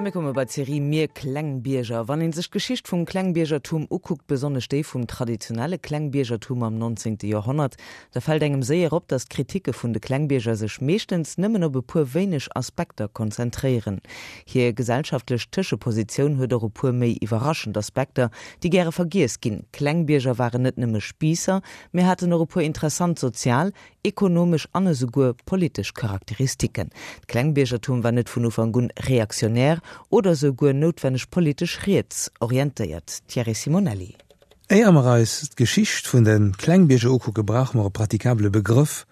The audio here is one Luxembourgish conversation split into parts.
A mir komme bei d'Serie Mir Klengbierger. Wann een sech d'Geschicht vum Klengbiergertum ukuckt, besonnesch déi vum traditionelle Klengbiergertum am 19. Joerhonnert, da fält engem séier op, datt d'Kritike vun de Klengbierger sech meeschtens nëmmen op e puer wéineg Aspekter konzentréieren. Hir gesellschaftlech Tëschepositioun huet och e puer méi iwwerraschend Aspekter, déi gäre vergiess ginn. Klengbierger waren net nëmme Spiisser, mee haten och e puer interessant sozial, ekonomesch an esouguer politesch Charakteristiken. D'Klengbiergertum war net vun Ufank un reaktionär oder esouguer noutwenneg politesch riets orientéiert. Thierry Simonelli. Éier mer eis d'Geschicht vun de Klengbierger ukucke brauche mer e pratikabele Begrëff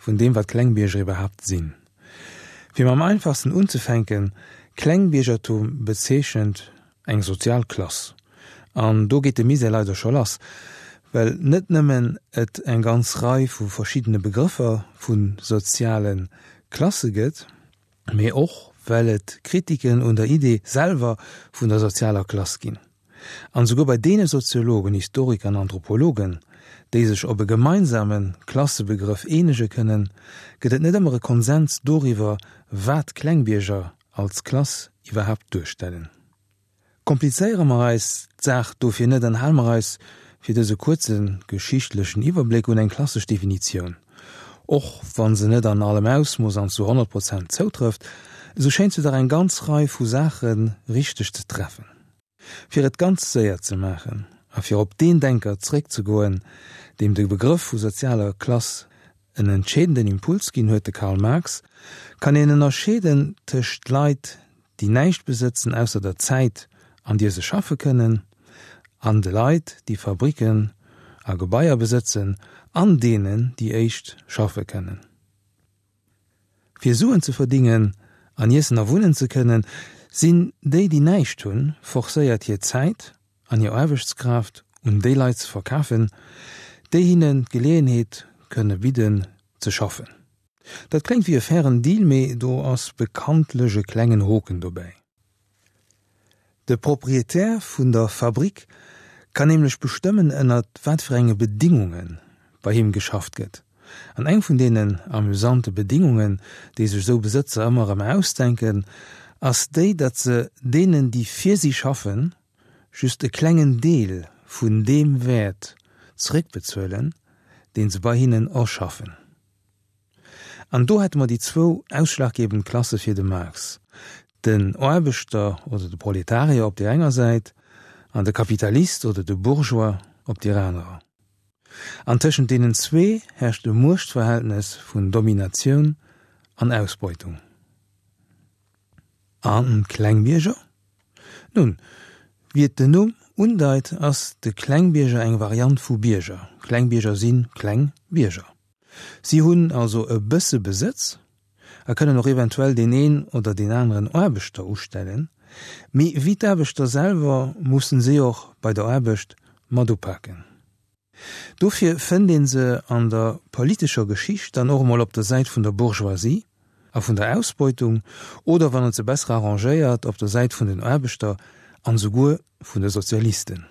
vun deem wat Klengbierger iwwerhaapt sinn. Fir mam einfachsten unzefänken, Klengbiergertum bezeechent Eng sozial Klass. An do geet de Misär leider scho lass, well net nëmmen et eng ganz Rei vu verschiddene Begrëffer vu soziale Klasse gëtt, mee och well et Kritiken un der Idee selwer vun der sozialer Klass ginn. An esouguer bei deene Soziologen, Historiker an Anthropologen, déi sech op e gemeinsame Klassebegrëff eenege kënnen, gëtt et net ëmmer e Konsens doriwwer, wat Klengbierger als Klass iwwerhaapt duerstellen. Komplizéiere mer eis d'Saach dofir net an hale mer eis fir dëse kuerze geschichtlechen Iwwerbléck un eng klassesch Definitioun. Och wa se net an allem Ausmooss an zu 100 Prozent zoutrëfft, esou schéint se dach eng ganz Rei vu Saache richteg ze treffen. Fir et ganz séier ze maachen a fir op deen Denker zréckzegoen, deem de Begrëff vu sozialer Klass en entscheedenden Impuls ginn huet, de Karl Marx, kann een ënnerscheeden tëscht Leit, déi näischt besëtzen ausser der Zäit, an dier se schaffe kënnen, an de Leit, déi Fabriken a Gebaier besëtzen an deenen déi éischt schaffe kënnen. Fir Suen ze verdingen an iessen a wunnen ze kënnen, sinn déi, déi näischt hunn, forcéiert hir Zäit an hir Aarbechtskraaft un déi Leit ze verkafen, déi hinnen d'Geleeënheet kënne bidden ze schaffen. Dat kléngt wéi e fairen Deal, mee do ass bekanntlech e klengen Hoken dobäi. De Proprietär vun der Fabrik kann nämlech bestëmmen ënnert wat fir enge Bedingunge bei him geschafft gëtt. An eng vun deenen amüsante Bedingungen, déi sech esou Besëtzer ëmmer erëm ausdenken, ass déi, datt se deenen, déi fir si schaffen, just e klengen Deel vun deem Wäert zeréckbezuelen, deen se bei hinnen erschaffen. An do hätte mer déi zwou ausschlaggebend Klasse fir de Marx, den Aarbechter oder de Proletarier op deer enger Säit an de Kapitalist oder de Bourgeois op deer anerer. An tëschent deenen zwee herrscht e Muechtverhältnes vun Dominatioun an Ausbeutung. An d'Klengbierger? Nun, wéi et den Numm undeit, ass de Klengbierger eng Variant vu Bierger. Klengbierger si kleng Bierger. Si hunn also e bësse Besëtz a kënnen och eventuell deen een oder deen aneren Aarbechter ustellen, mee wéi d'Aarbechter selwer mussen si och bei der Aarbecht mat upaken. Dofir fënnt ee se an der politescher Geschicht dann och emol op der Säit vun der Bourgeoisie a vun der Ausbeutung oder, wann et se besser arrangéiert, op der Säit vun den Aarbechter an esouguer vun de Sozialisten.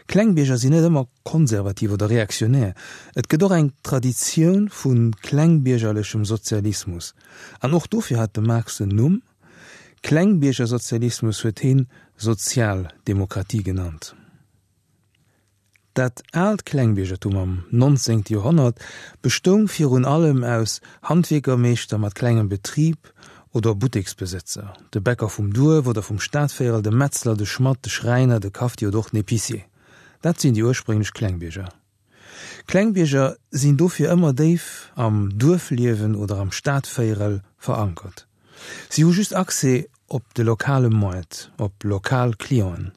Klengbierger sinn net ëmmer konservativ oder reaktionär. Et gëtt och eng Traditioun vu klengbiergerlechem Sozialismus. An och dofir hat de Marx en Numm, Klengbiergersozialismus huet heen Sozialdemokratie genannt. Dat aalt Klengbiergertum am 19. Joerhonnert bestoung virun allem aus Handwierkermeeschter mat klengem Betrib oder Butteksbesëtzer, de Bäcker vum Duerf oder vum Stadvéierel, de Metzler, de Schmadd, de Schräiner, de Kafti oder och den Épicier. Dat sinn déi ursprénglech Klengbierger. Klengbierger sinn dofir ëmmer déif am Duerfliewen oder am Stadvéierel verankert. Si hu just Accès op de lokale Moart, op lokal Clienten.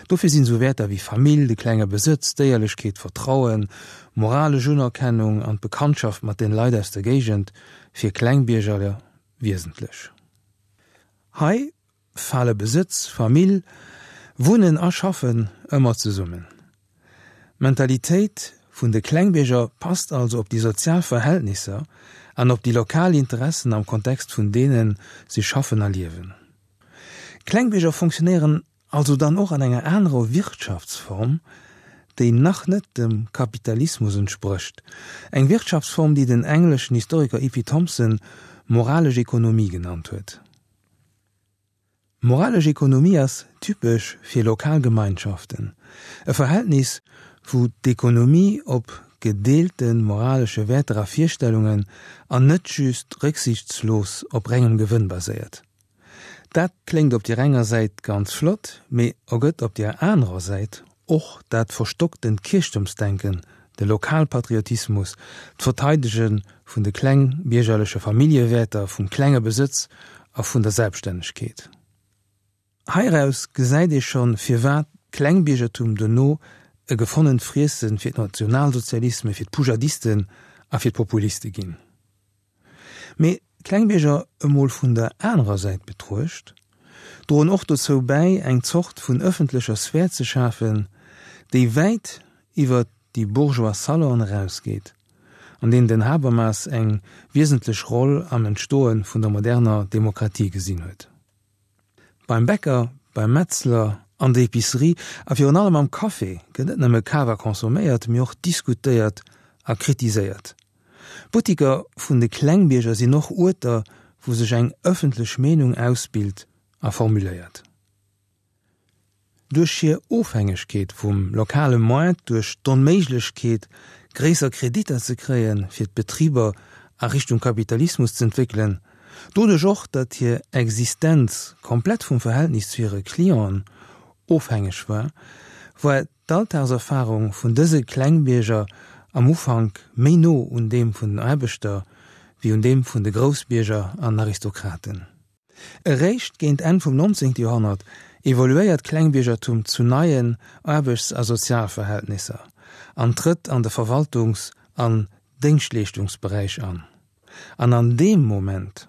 Dofir sinn esou Wäerter wéi Famill, de klenge Besëtz, d'Éierlechkeet, Vertrauen, moralesch Unerkennung an d'Bekanntschaft mat den Leit aus der Géigend fir Klengbiergerler wiesentlech. Hei fale Besëtz, Famill, Wunnen a Schaffen ëmmer zesummen. D'Mentalitéit vun de Klengbierger passt also op déi sozial Verhältnisser an op déi lokal Interessen am Kontext vun deene si schaffen a liewen. Klengbierger fonctionnéieren also dann och an enger anerer Wirtschaftsform, déi nach net dem Kapitalismus entsprécht, eng Wirtschaftsform, déi den engleschen Historiker E. P. Thompson moralesch Ekonomie genannt huet. Moralesch Ekonomie ass typesch fir lokal Gemeinschaften, e Verhältnis, wou d'Ekonomie op gedeelte moralesche Wäerter a Virstellungen an net just rëcksichtslos op rengem Gewënn baséiert. Dat kléngt op deer enger Säit ganz flott, mee ergëtt op deer anerer Säit och dat verstocktent Kierchtumsdenken, de Lokalpatriotismus, d'Verteidege vun de klengbiergerleche Familljewäerter, vum klenge Besëtz a vun der Selbststännegkeet. Heiraus gesäit ee schonn, firwat d'Klengbiergertum dono e gefonnent Friesse fir d'Nationalsozialisme, fir d'Poujadisten a fir d'Populiste ginn. Mee d'Klengbierger emol vun der anerer Säit betruecht, droen och dozou bäi, eng Zort vun ëffentlecher Sphär ze schafen, déi wäit iwwer déi bourgeois Salonen erausgeet, an deenen den Habermas eng wiesentlech Roll am Entstoe vun der moderner Demokratie gesinn huet. Beim Bäcker, beim Metzler, an der Epicerie a virun allem am Café gëtt net nëmme kaf a consomméiert, mee och diskutéiert a kritiséiert. D'Buttiker vun de Klengbierger sinn och Uerter, wou sech eng ëffentlech Meenung ausbilt a formuléiert. Duerch hir Ofhängegkeet vum lokale Moart, duerch d'Onméiglechkeet, gréisser Kreditter ze kréien, fir d'Betriber a Richtung Kapitalismus z'entwéckelen, doduerch och, datt hir Existenz komplett vum Verhältnis zu hire Clienten ofhängeg war, war d'Alltagserfarung vun dëse Klengbierger am Ufank méi no un deem vun den Aarbechter wéi un deem vun de Groussbierger an Aristokraten. Eréischt géint Enn vum 19. Joerhonnert evoluéiert d'Klengbiergertum zu neien Aarbechts a Sozialverhältnisser an trëtt an de Verwaltungs an Déngschtleeschtungsberäich an. An an deem Moment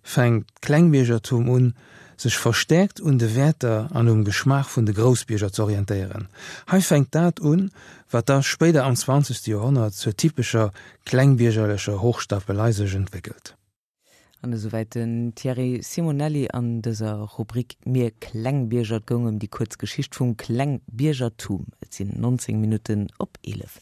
fänkt d'Klengbiergertum un, sech verstäerkt un de Wäerter an um Geschmaach vun de Groussbierger z'orientéieren. Hei fänkt dat un, wat da spéider am zwanzegste Joerhonnert zur typescher klengbiergerlecher Hochstapelei sech entwéckelt. An esouwäit den Thierry Simonelli an dëser Rubrik Mir Klengbierger. Et goung ëm déi kuerz Geschicht vum Klengbiergertum. Et sinn 19 Minutten op 11.